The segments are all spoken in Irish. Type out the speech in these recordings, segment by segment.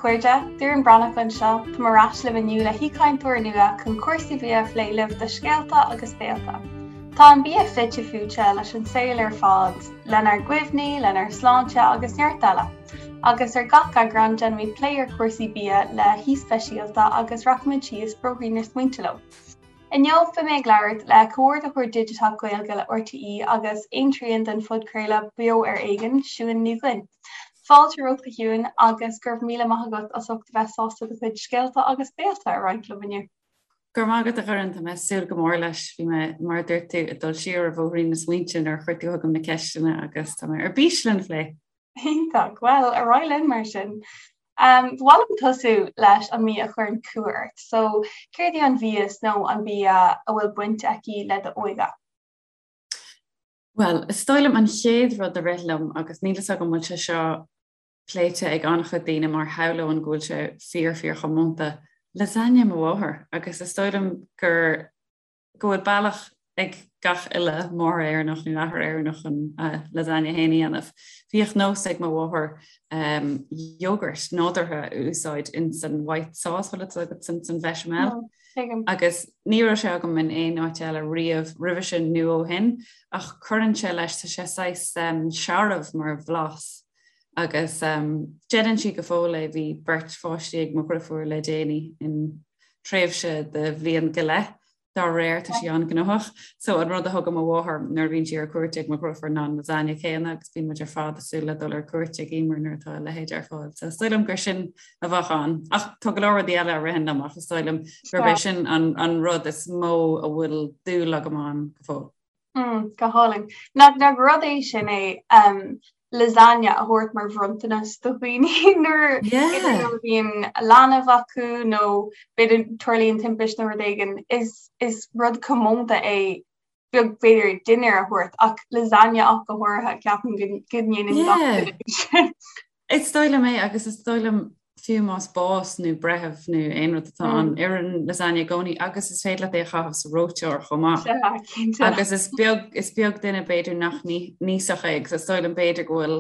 chairde, Doireann Breathnach anseo, táim ar ais libh inniu le haoichainteoir nua chun cúrsaí bia a phlé libh do Scéalta agus Béalta. Tá an bia fite fuaite leis an saol ar fad, lenár gcuimhní, lenár sláinte agus neart eile. Agus ar gach eagrán déanaimid plé ar chúrsaí bia le haoi speisialta agus rachaimid síos bóithrín na smaointe leo. Inniu beidh mé ag labhairt le Comhordaitheoir Digiteach Gaeilge le RTÉ agus aontrian den phodchraoladh Beo ar Éigean, Siún Ní Dhuinn. Fáilte romhat a Shiúin agus go raibh míle maith agat as ucht a bheith sásta do chuid scéalta agus béalta a roinnt liom inniu. Go raibh maith agat a Dhoireann, tá mé ag súil go mór leis. Bhí mé, mar a dúirt tú, ag dul siar ar bhóithrín na smaointe nuair a chuir tú chugam na ceisteanna agus tá mé ar bís lena phlé. Iontach. Bhuel, ar aghaidh linn mar sin. Ba mhaith liom tosú leis an mbia a chuireann cumha ort. So, céard í an mhias nó an bia a bhfuil baint aici le d'óige? Bhuel, is dóigh liom an chéad rud a rith liom, agus níl fhios agam an bhfuil sé seo pléite ag an-chuid daoine mar shamhlóinn go bhfuil sé fíor fíor chomónta, lasagne mo mháthar agus is dóigh liom gur go bhfuil bealach ag gach uile máthair Éireannach nó athair Éireannach an lasagne féin a dhéanamh. Bhíodh nós ag mo mháthair yogurt nádúrtha a úsáid in san white sauce, bhfuil fhios agat san san bhechamel. Agus ní raibh sé agam in aon áit eile riamh roimhe sin nó ó shin, ach cuireann sé leis, tá sé saghas searbh mar bhlas agus déanann sí go fóill é, bhí beirt pháistí ag mo dhriofúr le déanaí in tréimhse de bhliain go leith dá réir, tá sí an-ghnóthach. So an rud a thugann mo mháthair nuair a bhíonn sí ar cuairt ag mo dhriofúr ná an lasagne céanna agus bíonn muid ar fad ag súil le dul ar cuairt ag Emer nuair atá a leithéid ar fáil. So is dóigh liom gur sin a bheadh ann. Ach tá go leor rudaí eile a ritheann liom ach is dóigh liom gurb é sin an, an rud is mó a bhfuil dúil agam ann go fóill. Mm, go hálainn. Nach nach rud é sin é um, lasagne a thabhairt mar bhronntanas do dhaoine nuair a bhíonn leanbh acu nó b'fhéidir tarlaíonn timpiste nó rud éigin is is rud comónta é beag b'fhéidir dinnéar a thabhairt ach lasagne ach go háirithe ceapaim go ndéanann gach duine sin. Is dóigh liom é agus is dóigh liom fiú más bás nó breitheamh nó aon rud atá ann, oireann lasagne i gcónaí agus is féidir leat é a chaitheamh sa reoiteoir chomh maith. Sea, cinnte. Agus is beag, is beag duine b'fhéidir nach n-íosfadh é agus is dóigh liom b'fhéidir go bhfuil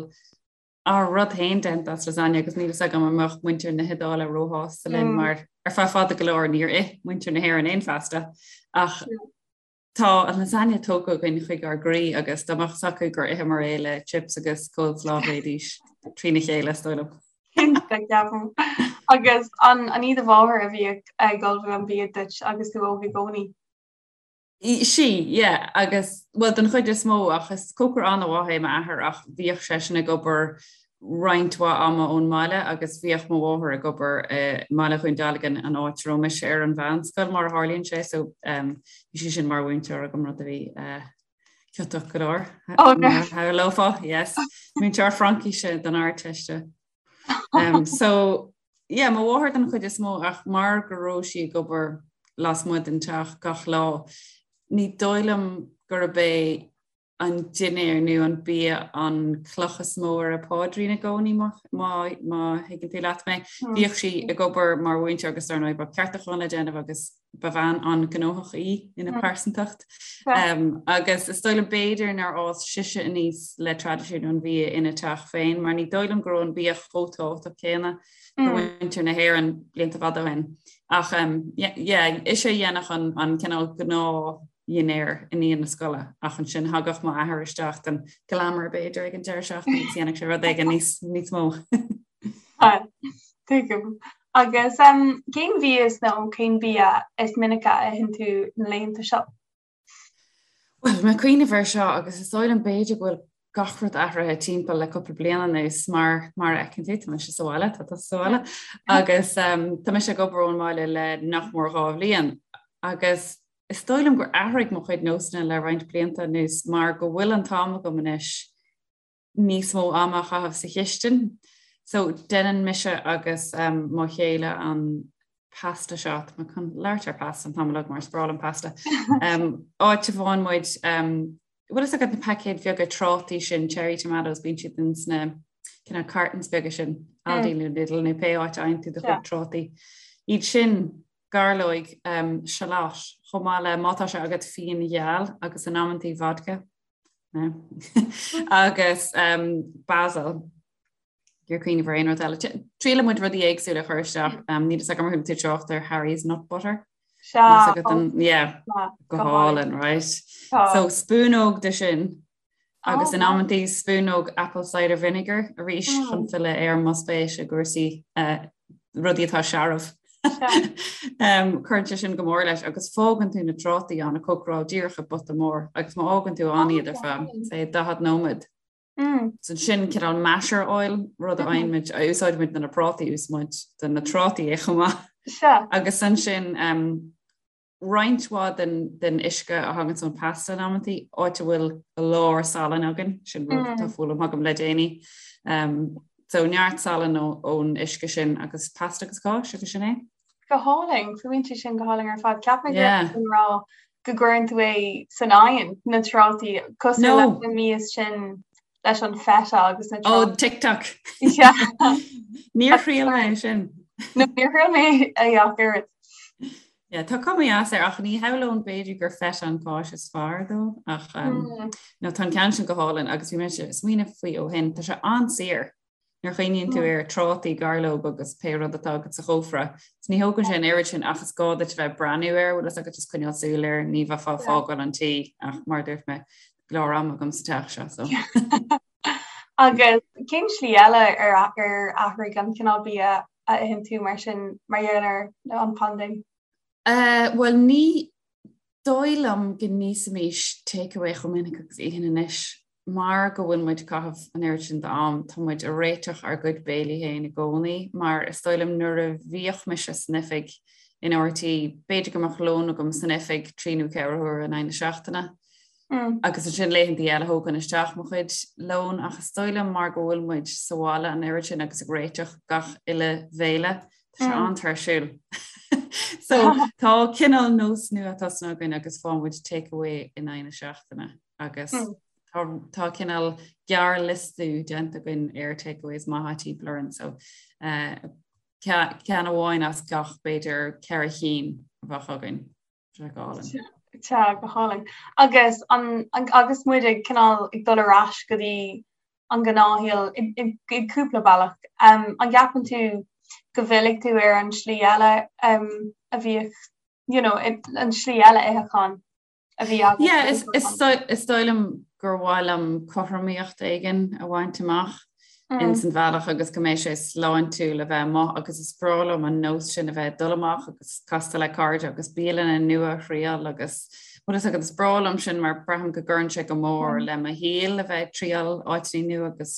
ár rud féin déanta as lasagne agus níl fhios agam an mbeadh muintir na hIodáile róshásta linn mar ar feadh fada go leor níor ith muintir na hÉireann aon phasta ach Tá an lasagne tógtha againn chuig ár gcroí agus dá mbeadh fhios acu gur itheamar é le chips agus coleslaw bheidís trína chéile, is dóigh liom. Cinnte, ceapaim. Agus an an í do mháthair a bhíodh ag ullmhú an bia duit agus tú óg i gcónaí? Sí, yeah, agus, bhuel, den chuid is mó, ach is cócaire an-mhaith é m'athair ach bhíodh seisean ag obair roinnt mhaith ama ón mbaile agus bhíodh mo mháthair ag obair i mBaile Dhún Dealgan, an áit a raibh mise ar an mheánscoil mar a tharlaíonn sé, so bhí sí sin mar mhúinteoir agam, rud a bhí ciotach go leor, mar a shamhlófá, yes, múinteoir Fraincise don Ardteiste. So yeah, mo mháthair den chuid is mó ach mar go raibh sí ag obair lasmuigh den teach gach lá, ní dóigh liom gurb é an dinnéar nó an bia an cloch is mó ar a páidrín i gcónaí má thuigeann tú leat mé. Bhíodh sí ag obair mar mhúinteoir agus dar ndóigh bheadh ceartúcháin le déanamh agus ba bhean an-ghnóthach í ina pearsantacht. Agus is dóigh liom b'fhéidir nár fhás sise aníos le traidisiún an bhia ina teach féin mar ní dóigh liom go raibh an bia chomh tábhachtach céanna do mhuintir na hÉireann blianta fada ó shin. Ach yeah, ise a dhéanfadh an cineál gnáth dhinnéar i ndiaidh na scoile ach ansin thagadh m'athair isteach don glamour b'fhéidir ag an deireadh seachtaine agus dhéanfadh sé rud éigin níos níos mó. Tuigim. Agus um, cén mhias nó cén bia is minice a itheann tú na laethanta seo? Bhuel, mé ag cuimhneamh air seo agus is dóigh liom b'fhéidir go bhfuil gach rud athraithe timpeall le cúpla bliain anuas mar mar a fheiceann tú tá mise sa bhaile tá tusa sa bhaile agus um, tá mise ag obair ón mbaile le nach mór 2 bhliain agus Is dóigh liom gur athraigh mo chuid nósanna le roinnt blianta anuas mar go bhfuil an t-am agam anois níos mó ama a chaitheamh sa chistin. So déanann mise agus um, mo chéile an pasta seo, tá mé chun labhairt ar pasta an t-am uilig mar is breá liom pasta. Um, áit a bhfaigheann muid um, bhfuil fhios agat na paicéid bheaga trátaí sin, cherry tomatoes, bíonn siad in sna cineál cartons beaga sin, Aldi nó Lidl nó pé áit a fhaigheann tú do chuid trátaí. Iad sin gairleoig, shallot, chomh maith le, má tá sé agat, fíon gheal agus in amantaí vodka, agus basil. Ag iarraidh cuimhneamh ar aon rud eile. Triaileann muid rudaí éagsúla a chur isteach. Níl fhios agam ar chuala tú trácht ar Harry's Nut Butter. Sea. Yeah, go hálainn, right? So spúnóg de sin agus in amantaí spúnóg apple cider vinegar arís chun filleadh ar mo spéis i gcúrsaí rudaí atá searbh. Cuireann sé sin go mór leis agus fágann tú na trátaí ann ag cócaráil díreach i bpota mór agus má fhágann tú ann iad ar feadh, say, 40 nóiméad. Ansin cineál masher oil, rud a fhaigheann muid, a úsáideann muid do na prátaí, úsáideann muid do na trátaí é chomh maith. Sea. Agus ansin roinnt mhaith den, den uisce a thagann ón pasta in amantaí, áit a bhfuil go leor salainn againn, sin rud atá foghlamtha agam le déanaí. So neart salainn ón uisce sin agus pasta agus cáis agus sin é. Go hálainn, fuaimníonn sé sin go hálainn ar fad. Cheap mé go raibh tú ag rá go gcuireann tú é san oigheann, na trátaí, cosúil leis na mias sin leis an feta agus na trátaí. Oh, TikTok! Níor thriail mé é sin. No, níor thriail mé é ach oiread. Yeah, tá cuma dheas air ach ní shamhlóinn b'fhéidir gur feta an cáis is fearr dó ach no tá an ceann sin go hálainn agus bhí mé ag smaoineamh faoi ó shin, tá sé an-saor. Nuair a chuimhníonn tú ar trátaí, gairleog agus pé rud atá agat sa chófra, is ní thógann sé an oiread sin ach is gá duit a bheith ag breathnú air, bhfuil fhios agat just coinneáil súil air, ní bheifeá ag fágáil an tí ach mar a dúirt mé, go leor ama agam sa teach seo so. Agus cén slí eile ar ar athraigh an cineál bia a itheann tú mar sin mar gheall ar an phaindéim? Bhuel ní dóigh liom go n-íosfaimis takeaway chomh minic agus a itheann anois. Mar go bhfuil muid ag caitheamh an oiread sin d'am, tá muid ag réiteach ár gcuid béilí féin i gcónaí, mar is dóigh liom nuair a bhíodh mise san oifig in RTÉ, b'fhéidir go mbeadh lón agam san oifig trí nó ceithre huaire in aghaidh na seachtaine agus ansin laethantaí eile thógainn isteach mo chuid lón ach is dóigh liom mar go bhfuil muid sa bhaile an oiread sin agus ag réiteach gach uile bhéile, Tá sé an-tuirsiúil. So tá cineál nós nua tosaithe againn agus faigheann muid take away in aghaidh na seachtaine agus tá tá cineál gearrliostú déanta againn ar takeaways maithe timpeall orainn so eh, ceann amháin as gach b'fhéidir ceithre chinn a bheadh againn. Tá go hálainn. Tá go hálainn. Agus an, agus muid ag cineál ag dul ar ais go dtí an gnáthshaol i gcúpla bealach, um, an gceapann tú go bhfillfidh tú ar an slí eile um, a bhíodh, you know, an slí eile itheacháin a bhí agat? Yeah, is, is, is dóigh liom gur mhaith liom cothromaíocht éigin a bhaint amach. ins an bhealach agus go mbeidh sé sláintiúil a bheith amuigh agus is breá liom an nós sin a bheith ag dul amach agus castáil le cairde agus bialanna nua a thriail agus bhfuil fhios agat is breá liom sin mar braithim go gcuireann sé go mór le mo shaol a bheith ag triail áiteanna nua agus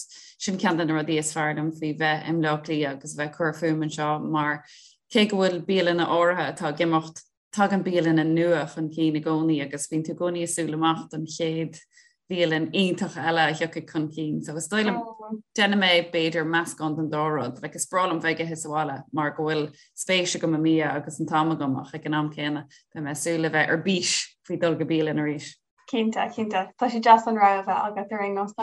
sin ceann de na rudaí is fearr liom faoi bheith i mBleá Cliath agus a bheith ag cur fúm anseo mar cé go bhfuil bialanna áirithe atá ag imeacht Tagann bialanna nua chun cinn i gcónaí agus bíonn tú i gcónaí ag súil amach don chéad bhialann iontach eile a thiocfaidh chun cinn. So is dóigh liom déanfaidh mé b'fhéidir meascán den dá rud. Like is breá liom bheith ag ithe sa bhaile mar go bhfuil spéis agam i mbia agus an t-am agam ach ag an am céanna beidh mé ag súil le bheith ar bís faoi dul go bialann arís. Cinnte, cinnte. Tá sé deas an rogha a bheith agat ar aon nós.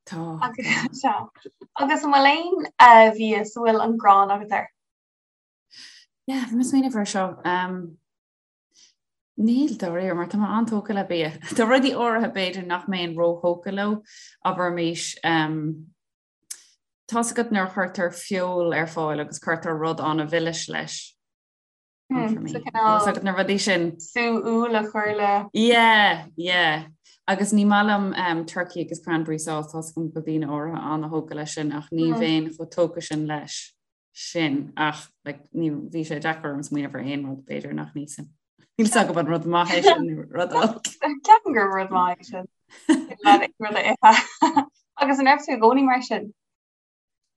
Tá. Agus agus an bhfuil aon eh, mhias a bhfuil an ghráin agat air? Yeah, bhí mé ag smaoineamh air seo. Um, níl dáiríre mar tá mé an-tógtha le bia. Tá rudaí áirithe b'fhéidir nach mbeinn róthógtha leo, abraimis um, tá's agat nuair a chuirtear feoil ar fáil agus cuirtear rud an-mhilis leis. Hmm, so cineál agat na rudaí sin. Sú úll a chur le. Yeah, yeah. Agus ní maith liom um, turkey agus cranberry sauce tá's agam go bhfuil daoine áirithe an-thógtha leis sin ach ní bheinn chomh tógtha sin leis. sin ach like, ní bhí sé deacair orm smaoineamh ar aon rud b'fhéidir nach n-íosfainn. Níl 's agam an rud maith é sin nó rud olc. Ceapaim gur rud maith é sin. Rud a ithe. Agus an raibh tú i gcónaí mar sin?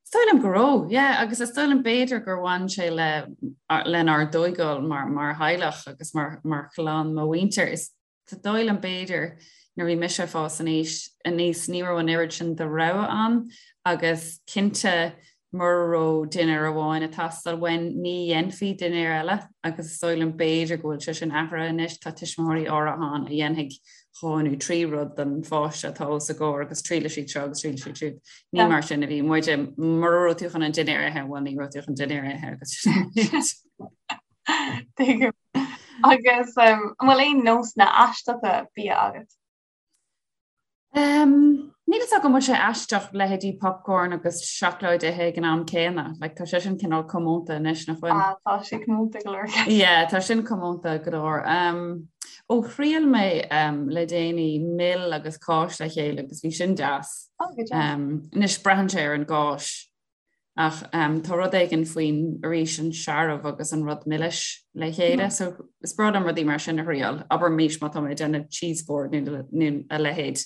Is dóigh liom go raibh, yeah, agus is dóigh liom b'fhéidir gur bhain sé le lenár dtóigáil mar, mar theaghlach agus mar, mar chlann mo mhuintir. Is dóigh liom b'fhéidir nuair a bhí mise ag fás aníos aníos ní raibh an oiread sin de rogha ann agus cinnte mura raibh dinnéar amháin ag teastáil uainn ní dhéanfaí dinnéar eile agus is dóigh liom b'fhéidir go bhfuil sé sin athraithe anois, tá tuismitheoirí áirithe ann a dhéanfaidh dhá nó trí rud don pháiste atá os a gcomhair agus triailfidh siad seo agus triailfidh siad siúd. Ní mar sin a bhí muide, mura raibh tú chun an dinnéar a ithe, bhuel ní raibh tú chun dinnéar a ithe agus Tuigim. Agus um, an bhfuil aon nósanna aisteacha bia agat? Um, Níl fhios agam an bhfuil sé aisteach leithéidí popcorn agus seacláid a ithe ag an am céanna. Like, tá sé sin cineál comónta anois nach bhfuil? Ah, tá sé comónta go leor. Yeah, tá sin comónta go leor. Um, ó thriail mé um, le déanaí mil agus cáis le chéile agus bhí sin deas. Oh, go deas. Um, anois braitheann sé ar an gcáis. Ach tá rud éigin faoin, arís, an searbh agus an rud milis le chéile. So is breá liom rudaí mar sin a thriail. Abraimis má tá mé ag déanamh cheese board nó a leithéid,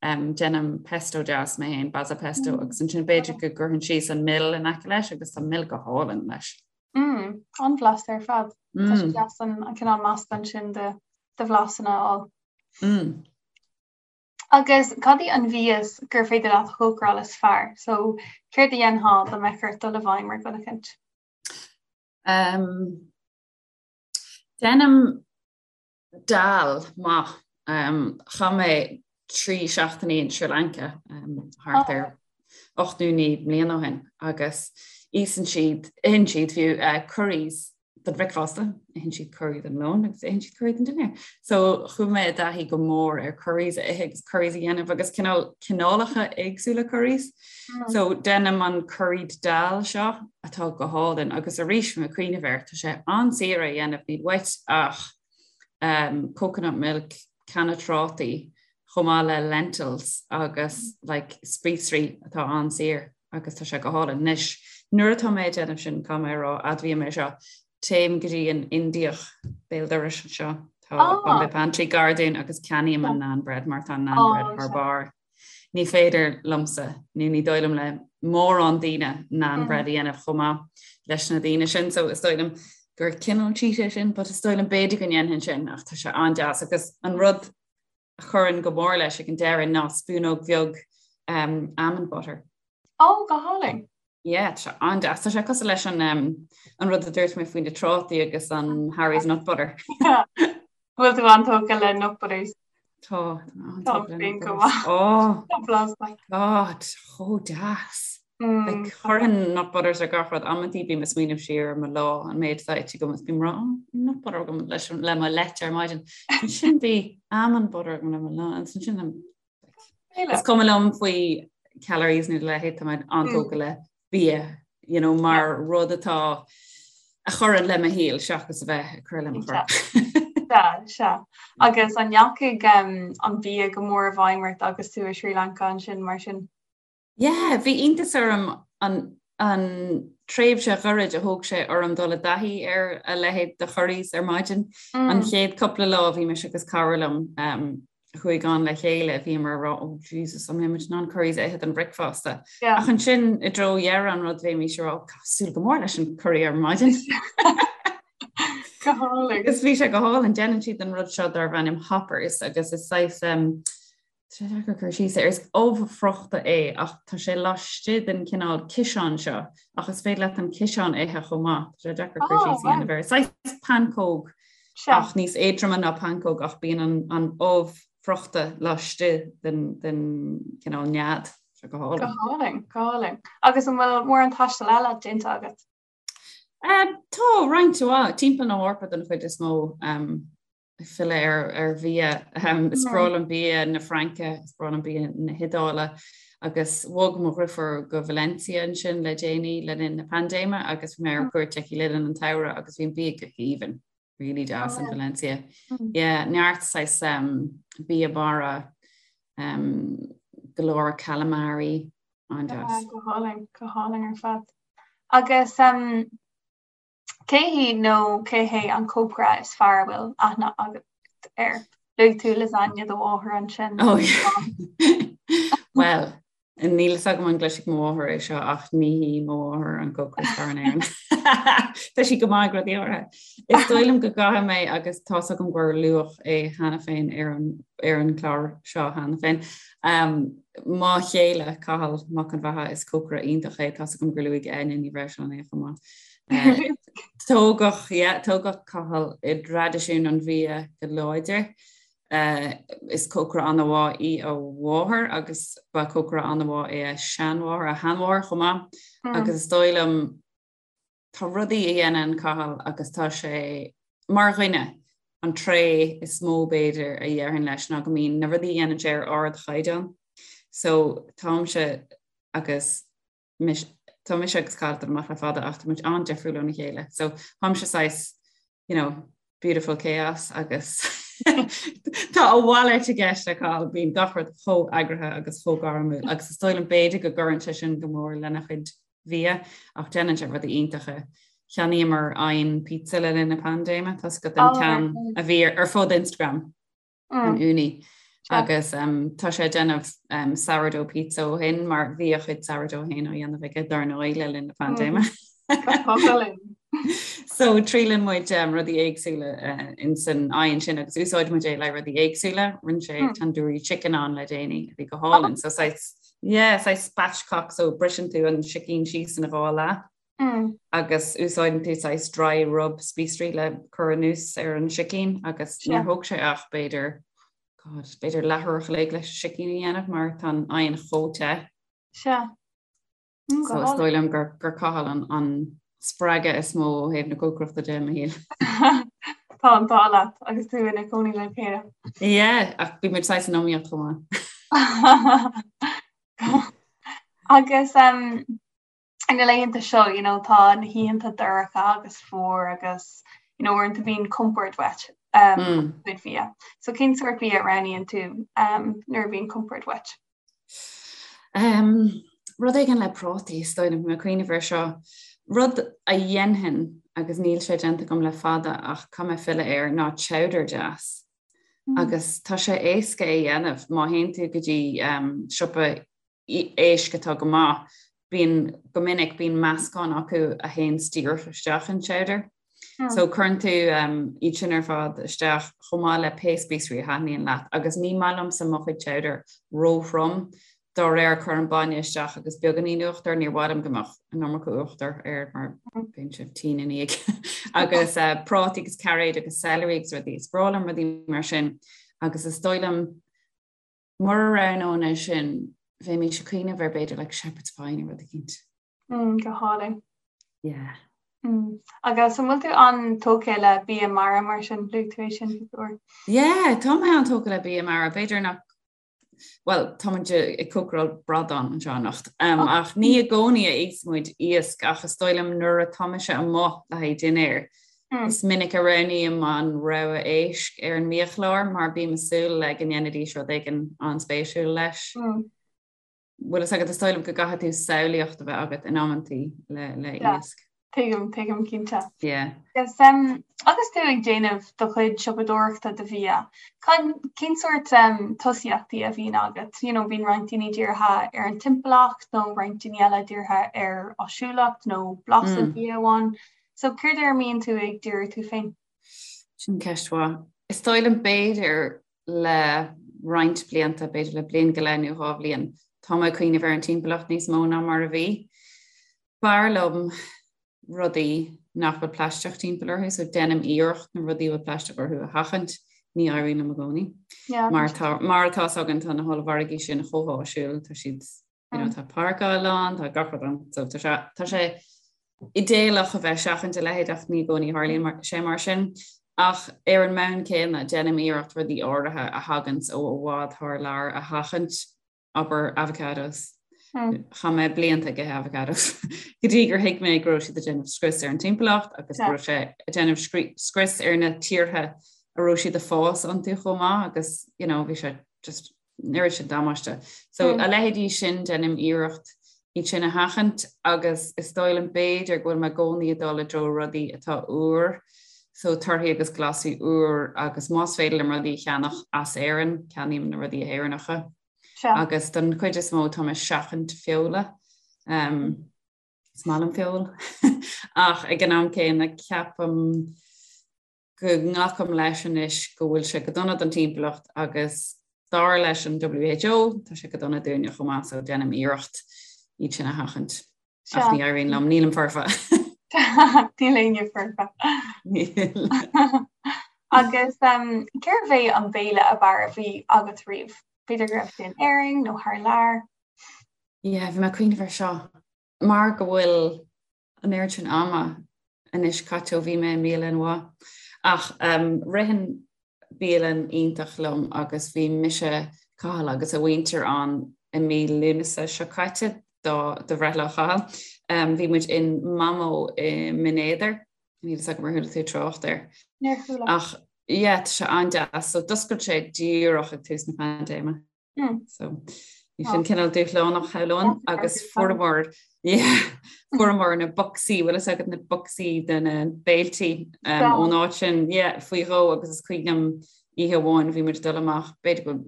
déanaim pesto deas mé féin, basil pesto, agus ansin b'fhéidir go gcuirfinn síos an mil in aice leis agus tá mil go hálainn leis. Mm, an-bhlasta ar fad. Tá sé deas an cineál meascán sin de bhlasanna a fháil. Mm. Agus cad í an mhias gur féidir leat a chócaráil is fearr? So, céard a dhéanfá dá mbeadh ort dul i bhfeidhm ar dhuine eicint? Um, déanaim dal maith. Um, chaith mé 3 seachtainí in Sri Lanka um, thart ar 8 nó 9 mbliana ó shin agus íosann siad, itheann siad fiú uh, curries don bhricfeasta, itheann siad curry don lón agus itheann siad curry don dinnéar. So chuaigh mé i dtaithí go mór ar curries a ithe agus curries a dhéanamh agus cineál cineálacha éagsúla curries. Mm. So déanaim an curried dal seo atá go hálainn agus arís mé ag cuimhneamh air tá sé an-saor a dhéanamh níl uait ach um, coconut milk, canna trátaí, chomh maith le lentils agus like, spíosraí atá an-saor. agus tá sé go hálainn. Anois, nuair atá mé ag déanamh sin, caithfidh mé a rá, admhaím é seo, téim go dtí an Indiach béal dorais anseo, tá ah. Bombay Pantry gar dúinn agus ceannaím an naan bread mar tá an naan bread thar barr. Ní féidir liomsa, nó ní dóigh liom le mórán daoine naan mm. bread a dhéanamh chomh maith leis na daoine sin, so is dóigh liom gur cineál cheat é sin, but is dóigh liom b'fhéidir go ndéanfainn sin ach tá sé an-deas agus an rud a chuireann go mór leis ag an deireadh ná spúnóg bheag um, almond butter. Ó, go hálainn. Yeah, tá sé an-deas. Tá sé cosúil leis an, um, an rud a dúirt mé faoi na trátaí agus an Harry's Nut Butter. Bhfuil tú an-tógtha le nut butters? Tá, tá an-tógtha le nut butters. Oh, my God, chomh deas. Mm. Like, chuirfinn nut butters ar gach rud amantaí bím ag smaoineamh siar ar mo lá an méid atá ite agam is bím ag rá oh, nut butter agam leis le mo leite ar maidin. Ansin bhí almond butter agam le mo lá ansin sin Is cuma liom faoi calories nó a leithéid tá mé an-tógtha le bia you know, mar rud atá a chuireann le mo shaol seachas a bheith ag cur le mo chorp. Sea, sea. Agus an ndeachaigh um, an bia go mór i bhfeidhm ort agus tú i Sri Lanka ansin mar sin? Yeah, bhí iontas orm an an tréimhse ghairid a thóg sé orm dul i dtaithí ar a leithéid de churries ar maidin. Mm. An chéad cúpla lá bhí mise agus cara liom um, a chuaigh ann le chéile, bhíomar ag rá oh Jesus, an mbeidh muid in ann curries a ithe don bhricfeasta. Yeah. Ach ansin i dtreo dheireadh an rud bhímis ag rá oh, súil go mór leis an curry ar maidin. Go hálainn. Agus bhí sé go hálainn, déanann siad an rud seo darb ainm hoppers agus is saghas um, Tá sé deacair cur síos air. Is ubh friochta é ach tá sé laistigh den cineál ciseán seo ach is féidir leat an ciseán a ithe chomh maith. Tá sé deacair cur síos a dhéanamh air. Saghas pancóg ach níos éadroime ná pancóg ach bíonn an, an ubh friochta laistigh den, den cineál nead. Tá sé go hálainn. Go hálainn, go hálainn. Agus an bhfuil mórán taistil eile déanta agat? Um, tá roinnt mhaith timpeall na hEorpa den chuid is mó. Um, ag filleadh ar ar bhia. Is breá liom bia na Fraince, is breá liom bia na hIodáile agus bhog mo dhriofúr go Valencia ansin le déanaí le linn na paindéime agus bhí mé ar cuairt aici le linn an tsamhraidh agus bhí an bia go haoibhinn, really deas in Valencia. Yeah, neart saghas um, bia mara, um, go leor calamari, an-deas. Go hálainn, go hálainn ar fad. Agus um, Cé hí nó cé hé an cócaire is fearr a bhfuil aithne agat air? Luaigh tú lasagne do mháthar ansin. Oh, Well, níl fhios agam an gcloisfidh mo mháthair é seo ach ní hí mo mháthair an cócaire is fearr in Éirinn. Tá sí go maith ag rudaí áirithe. Is dóigh liom go gcaithfidh mé agus tá's agam gur luadh é cheana féin ar an ar an chlár seo cheana féin. Um, mo chéile Cathal Mac an Bheatha is cócaire iontach é tá's agam gur luaigh Áine Ní Bhreisleáin é chomh maith. Tógadh, yeah, tógadh Cathal i dtraidisiún an bhia go láidir. Is cócaire an-mhaith í a mháthair agus ba cócaire an-mhaith é a seanmháthair, a sheanmháthair chomh maith. Agus is dóigh liom, tá rudaí a dhéanann Cathal agus tá sé, mar dhuine, an tréith is mó b'fhéidir a dhéarfainn leis ná go mbíonn na rudaí a dhéanann sé ar ardchaighdeán. So táimse agus mise, tá mise agus Cathal ag dul amach le fada ach tá muid an-difriúil óna chéile. So táimse saghas, you know, beautiful chaos agus tá a mhalairt i gceist le Cathal, bíonn gach rud chomh eagraithe agus chomh gairmiúil agus is dóigh liom b'fhéidir go gcuireann sé sin go mór lena chuid bhia ach déanann sé rudaí iontacha. Cheannaíomar oigheann pizza le linn na paindéime, tá 's agat an ceann a bhí ar fud Instagram. an Ooni agus tá sé ag déanamh sourdough pizza ó shin mar bhí a chuid sourdough féin á dhéanamh aige dar ndóigh le linn na paindéime. So triaileann muid rudaí éagsúla in san oigheann sin agus úsáid muid é le rudaí éagsúla, rinne sé tandoori chicken ann le déanaí a bhí go hálainn. So saghas yeah, saghas spatchcock so briseann tú an sicín síos ina dhá leath. agus úsáideann tú saghas dry rub spíosraí le cur anuas ar an sicín agus níor thóg sé ach b'fhéidir, God, b'fhéidir leathuair a chloig leis an sicín a dhéanamh mar tá an oigheann chomh te. Sea. So is dóigh liom gur gur Cathal an an spreagadh is mó ó thaobh na cócaireachta de i mo shaol. Tá an t-ádh leat agus tú ina cónaí le chéile. Yeah, ach bhí muid saghas in iomaíocht chomh maith. Agus um, na laethanta seo, you know, tá na hoícheanta dorcha agus fuar agus, you know, uaireanta bíonn compord uait um, mm. cuid bhia. So cén sórt bia a roghnaíonn tú um, nuair a bhíonn compord uait? Um, rud éigin le prátaí, is dóigh liom, bhí mé ag cuimhneamh air seo. Rud a dhéanfainn agus níl sé déanta agam le fada ach caithfidh mé filleadh air ná chowder deas. Mm. Agus tá sé éasca é dhéanamh má théann tú go dtí um, siopa éisc atá go maith, bíonn, go minic, bíonn meascán acu a théann díreach isteach in chowder. So cuireann tú iad sin ar fad isteach chomh maith le pé spíosraí a thaitníonn leat agus ní maith liomsa mo chuid chowder róthrom, dá réir cuirim bainne isteach agus beagáinín uachtair, níor mhaith liom go mbeadh an iomarca uachtair air mar bíonn sé tinn ina dhiaidh. Agus prátaí agus cairéid agus celery agus rudaí, is breá liom rudaí mar sin agus is dóigh liom Mura roghnóinn é sin, bheimis ag cuimhneamh ar b'fhéidir like shepherd's pie nó rud eicínt. Mm, go hálainn. Yeah. Mm. Agus an bhfuil tú an-tógtha le bia mara mar sin, luaigh tú é sin cúpla uair? Yeah, tá mé an-tógtha le bia mara, b'fhéidir nach Well, tá muid ag cócaráil bradán anseo anocht. Um, oh. Ach ní i gcónaí a íosann muid iasc ach is dóigh liom nuair atá mise amuigh le haghaidh dinnéir, Is minic a roghnaím an rogha éisc ar an mbiachlár mar bím ag súil le go ndéanfaidís rud éigin an-spéisiúil leis. Bhfuil fhios agat, is dóigh liom go gcaithfidh tú samhlaíocht a bheith agat in amantaí le le iasc. Tuigim, tuigim cinnte. Yeah. Agus, um, agus tú ag déanamh do chuid siopadóireachta do bhia, cén sórt um, tosaíochtaí a bhíonn agat? You know, bíonn roinnt daoine dírithe ar an timpeallacht nó roinnt daoine eile dírithe ar áisiúlacht nó blas an bhia amháin. So céard ar a mbíonn tú ag díriú tú féin? Sin ceist mhaith. Is dóigh liom b'fhéidir le roinnt blianta, b'fhéidir le bliain go leith nó 2 bhliain, tá mé ag cuimhneamh ar an timpeallacht níos mó ná mar a bhí. B'fhearr liom rudaí nach bhfuil plaisteach timpeall orthu, so déanaim iarracht na rudaí a bhfuil plaisteach orthu a sheachaint, ní éiríonn liom i gcónaí. Mar tá, mar atá 's againn, tá na hollmhargaí sin chomh háisiúil, tá siad You know, tá páirceáil ann, tá gach rud ann, so tá sé, tá sé idéalach a bheith ag seachaint a leithéid ach ní i gcónaí a tharlaíonn mar, sé mar sin. Ach ar an mbonn céanna, déanaim iarracht rudaí áirithe a thaganns ó i bhfad thar lear a sheachaint, abair avocados. Chaith mé blianta ag ithe avocados go dtí gur thuig mé go raibh siad ag déanamh scrios ar an timpeallacht agus go raibh sé ag déanamh scrios ar na tíortha a raibh siad ag fás iontu chomh maith agus you know, bhí sé just an oiread sin damáiste. So a leithéidí sin déanaim iarracht iad sin a sheachaint agus is dóigh liom b'fhéidir go bhfuil mé i gcónaí ag dul i dtreo rudaí atá úr, so torthaí agus glasraí úr agus más féidir liom rudaí a cheannach as Éirinn, ceannaím na rudaí Éireannacha. Agus don chuid is mó tá mé ag seachaint feola. Um, is maith liom feoil ach ag an am céanna ceapaim go nglacaim leis anois go bhfuil sé go dona don timpeallacht agus dar leis an WHO tá sé go dona dúinne chomh maith so déanaim iarracht iad sin a sheachaint. Ach ní éiríonn liom, nílim foirfe. Níl éinne foirfe. Níl. Agus um, cérbh é an béile ab fhearr a bhí agat riamh? B'fhéidir go raibh sé in Éirinn nó thar lear? Yeah, bhí mé ag cuimhneamh air seo. Mar go bhfuil an oiread sin ama anois caite ó bhí mé i mbialann mhaith. Ach ritheann bialann iontach liom agus bhí mise, Cathal agus a mhuintir ann i mí Lúnasa seo caite do do bhreithlá Chathail. Bhí muid in Mamo i mBinn Éadair, níl fhios agam ar chuala tú trácht air. Níor chuala. Ach yeah, tá sé an-deas. So d'oscail sé díreach ag tús na paindéime. Mm. So bhí sin cineál dúshlánach shamhlóinn agus fuaireamar fuaireamar na bocsaí bhfuil fhios agat na bocsaí de na béiltí um, ón áit sin yeah, faoi dhó agus is cuimhin liom oíche amháin bhí muid dul amach b'fhéidir go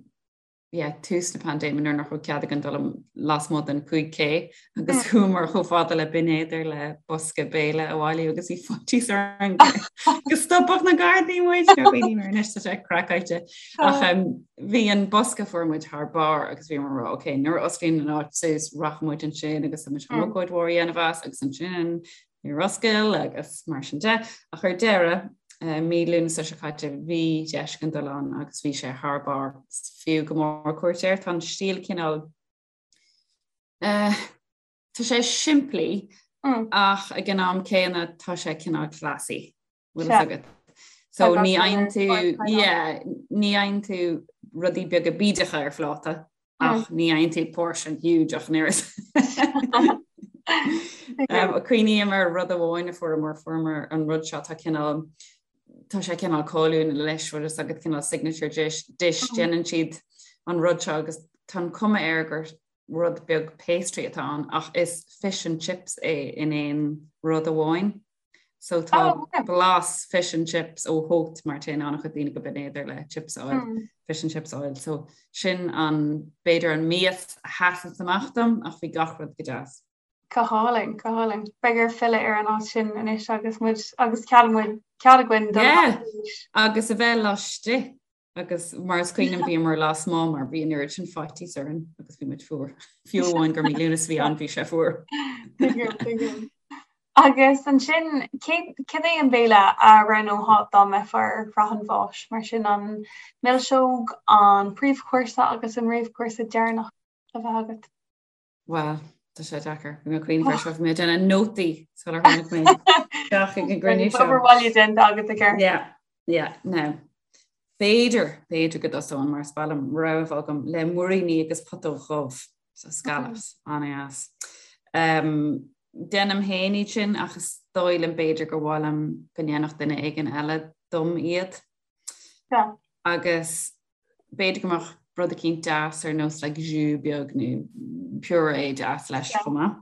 yeah, tús na paindéime nuair nach raibh cead againn dul lasmuigh den 5K agus mm. chuamar chomh fada le Binn Éadair le bosca béile a bhailiú agus bhí faitíos orainn go stopfadh na Gardaí muid anois tá sé craiceáilte ach um, bhí an bosca fuair muid thar barr agus bhí mar ok nuair a osclaíonn an áit suas rachaidh muid ansin agus muid chun mm. ócáid mhór a dhéanamh as agus ansin níor oscail agus mar sin de ach ar deireadh uh, mí Lúnasa seo caite bhí deis againn dul ann agus bhí sé thar barr fiú go mór cuairt air tá an stíl cineál uh, tá sé simplí mm. ach ag an am céanna tá sé cineál classy bhfuil fhios agat. So ní fhaigheann tú yeah, ní fhaigheann tú rudaí beaga bídeacha ar phláta ach ní fhaigheann tú portion huge ach an oiread. Um, Cuimhním ar rud amháin a fuaireamar fuaireamar an rud seo tá cineál tá sé cineál cáiliúil leis bhfuil fhios agat cineál signature dish, dish déanann siad an rud seo agus tá an cuma air gur rud beag pastry atá ann ach is fish and chips é in aon rud amháin. So tá oh, okay. blas fish and chips ó Haute mar téann an-chuid daoine go Binn Éadair le chips a fháil mm. fish and chips a fháil. So sin an b'fhéidir an mias a sheasann amach dom ach bhí gach rud go deas. Go hálainn, go hálainn. Beidh ort filleadh ar an áit sin anois agus muid agus cead muid cead againn yeah. Agus a bheith laistigh Agus mar is cuimhin liom bhíomar lasmuigh mar bhí an oiread sin faitíos orainn agus bhí muid fuar. Fiú amháin gur mí Lúnasa a bhí ann bhí sé fuar. Agus ansin cad é an béile a roghnófá dá mbeifeá ar shraith an bháis, mar sin an milseog, an príomhchúrsa agus an réamhchúrsa deireanach le bheith agat? Bhuel, tá sé deacair. Bhí mé ag cuimhneamh air seo, bhí mé ag déanamh nótaí sular tháinig mé isteach ag an gcruinniú seo. Obair bhaile déanta agat i gceart. Yeah, yeah, now. B'fhéidir, b'fhéidir go dtosóinn mar is maith liom rogha a bheith agam le muiríní agus putóg dhubh, so scallops, an-deas. Um, déanaim féin iad sin ach is dóigh liom b'fhéidir gur mhaith liom go ndéanfadh duine éigin eile dom iad. Yeah. Agus B'fhéidir go mbeadh rud eicínt deas ar nós like jus beag nó purée deas leis chomh maith.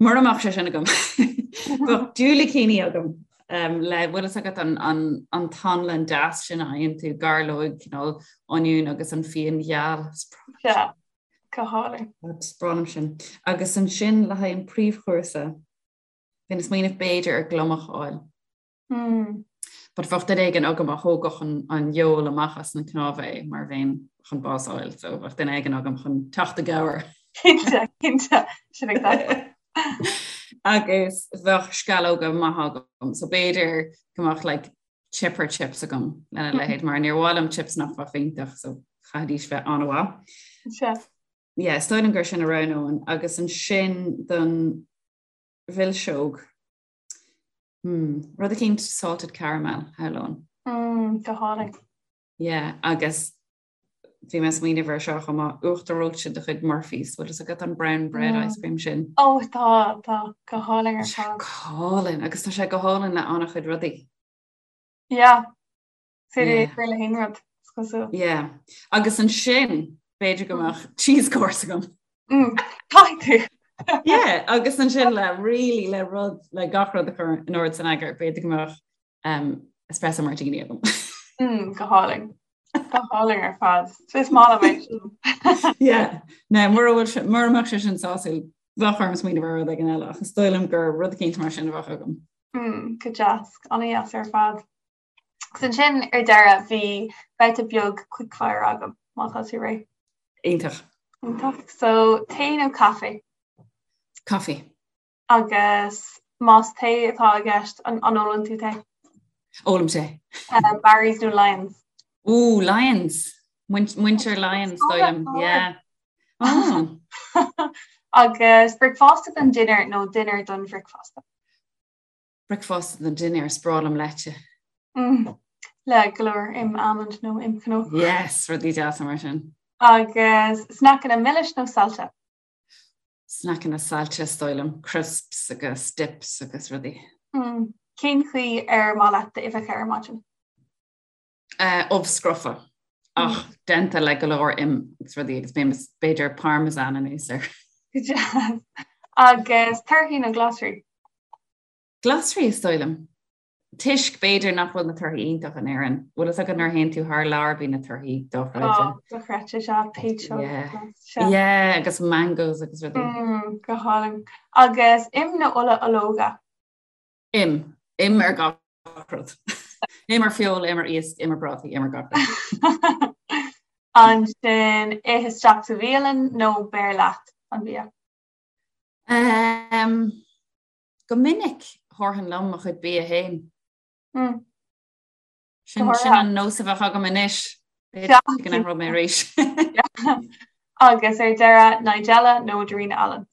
Mura mbeadh sé sin agam bheadh diúilicíní agam um, le bhfuil fhios agat an, an, an t-anlann deas sin a fhaigheann tú gairleog cineál oinniún agus an fíon gheal. Yeah, go hálainn. Is breá liom sin. Agus ansin le haghaidh an príomhchúrsa, bhínn ag smaoineamh b'fhéidir ar gliomach a fháil. Mm. But bheadh duine éigin agam a thógfadh an, an fheoil amach as na cnámha é mar bheinn chun bás a fháil, so bheadh duine éigin agam chun teacht i gcabhair. Cinnte, cinnte, sin ag dul. Agus bheadh sceallóga maithe agam, so b'fhéidir go mbeadh like, chipper chips agam lena mm. leithéid mar níor mhaith liom chips nach bheadh iontach, so chaithfidís bheith an-mhaith. Sea. Yeah, is dóigh liom gur sin a roghnóinn agus ansin don mhilseog Hmm, rud eicínt salted caramel, shamhlóinn. Mm, go hálainn. Yeah, agus bhí mé ag smaoineamh ar seo chomh maith, uachtar reoite de chuid Murphy's, bhfuil fhios agat an brown bread mm. ice cream sin? Ó oh, tá, tá, go hálainn ar fad. Go hálainn, agus tá sé go hálainn le an-chuid rudaí. Yeah, Féidir é le haon rud, is cosúil. Yeah. Agus ansin, b'fhéidir go mbeadh cheese course agam. Mm, caithfidh tú. Yeah, agus ansin le really le rud le gach rud a chur in ord san eagar, b'fhéidir go mbeadh um, espresso martini agam. Mm, go hálainn. Go hálainn ar fad. Is maith liom é sin. Yeah. Now, mura bhfuil sé- mura mbeadh sé sin sásúil, bheadh orm smaoineamh ar rud éigin eile, ach is dóigh liom gur rud eicínt mar sin a bheadh agam. Mm, go deas, an-deas ar fad. Agus ansin ar deireadh bhí babhta beag quickfire agam, má tá tú réidh. Iontach. Iontach. So, tae nó caife? Caife. Agus más tae atá i gceist, an ólann tú tae? Ólaim tae. Barry's nó Lyons? Ooh, Lyons. Muintir Lyons, dóigh liom. Yeah. Oh. Agus bricfeasta don dinnéar nó dinnéar don bhricfeasta? Bricfeasta don dinnéar, is breá liom leite. Mm. Le go leor im almond nó im cnó. Yes, rudaí deasa mar sin. Agus sneaiceanna milis nó saillte? Sneaiceanna saillte is dóigh liom, crisps agus dips agus rudaí. Cén chaoi ar maith leat d'uibheacha ar maidin? Ubh scrofa ach déanta le go leor im agus rudaí agus b'fhéidir parmesan anuas air. Go deas. Agus torthaí nó glasraí? Glasraí is dóigh liom. Toisc, b'fhéidir, nach bhfuil na torthaí iontach in Éirinn. Bhfuil fhios agat nuair a théann tú thar lear bíonn na torthaí dochreidte. Ó, dochreidte, sea, péitseog. Yeah. Yeah, agus mangoes agus rudaí. Mm, go hálainn. Agus im nó ola ológa? Im. Im ar gach rud. Im ar feoil, im ar iasc, im ar prátaí, im ar gach rud. Ansin, ith isteach sa bhialann nó beir leat an bia? Um, Go minic thabharfainn liom mo chuid bia féin. Sin sin an nós a bheadh agam anois. B'fhéidir go n-athróidh mé arís. Agus ar deireadh, Nigella nó Darina Allen?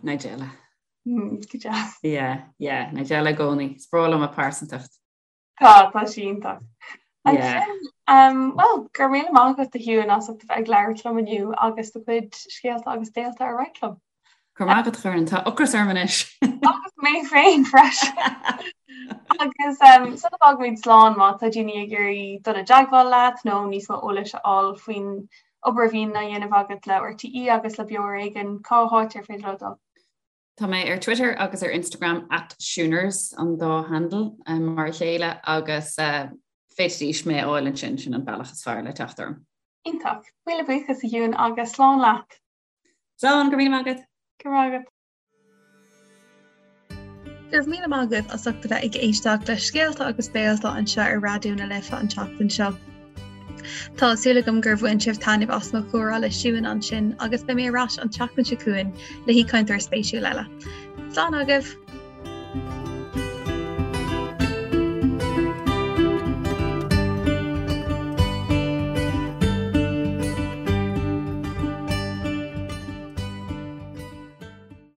Nigella. Go deas. Yeah, yeah, Nigella i gcónaí. Is breá liom a pearsantacht. Tá, tá sí iontach. Ansin, bhuel, go raibh míle maith agat a Shiúin as ucht a bheith ag labhairt liom inniu agus do chuid scéalta agus béalta a roinnt liom. Go raibh maith agat a Dhoireann, tá ocras orm anois. Agus mé féin freisin. Agus sula bhfágaimid slán má tá daoine ag iarraidh dul i dteagmháil leat nó níos mó eolais a fháil faoin obair a bhíonn á dhéanamh agat le RTÉ agus le Beo Ar Éigean, cá háit ar féidir leo dul? Tá mé ar Twitter agus ar Instagram at Shiúners an dá handle mar a chéile agus féadfaidís mé a fháil ansin, sin an bealach is fearr le teacht orm. Iontach. Míle buíochas a Shiúin agus slán leat. Slán, go raibh míle maith agat. Go raibh maith agat. Go raibh míle maith agaibh as ucht a bheith ag éisteacht le Scéalta agus Béalta anseo ar Raidió na Life an tseachtain seo. Tá súil agam gur bhain sibh taitneamh as mo chomhrá le Siún ansin agus beidh mé ar ais an tseachtain seo chugainn le haoichainteoir spéisiúil eile. Slán agaibh!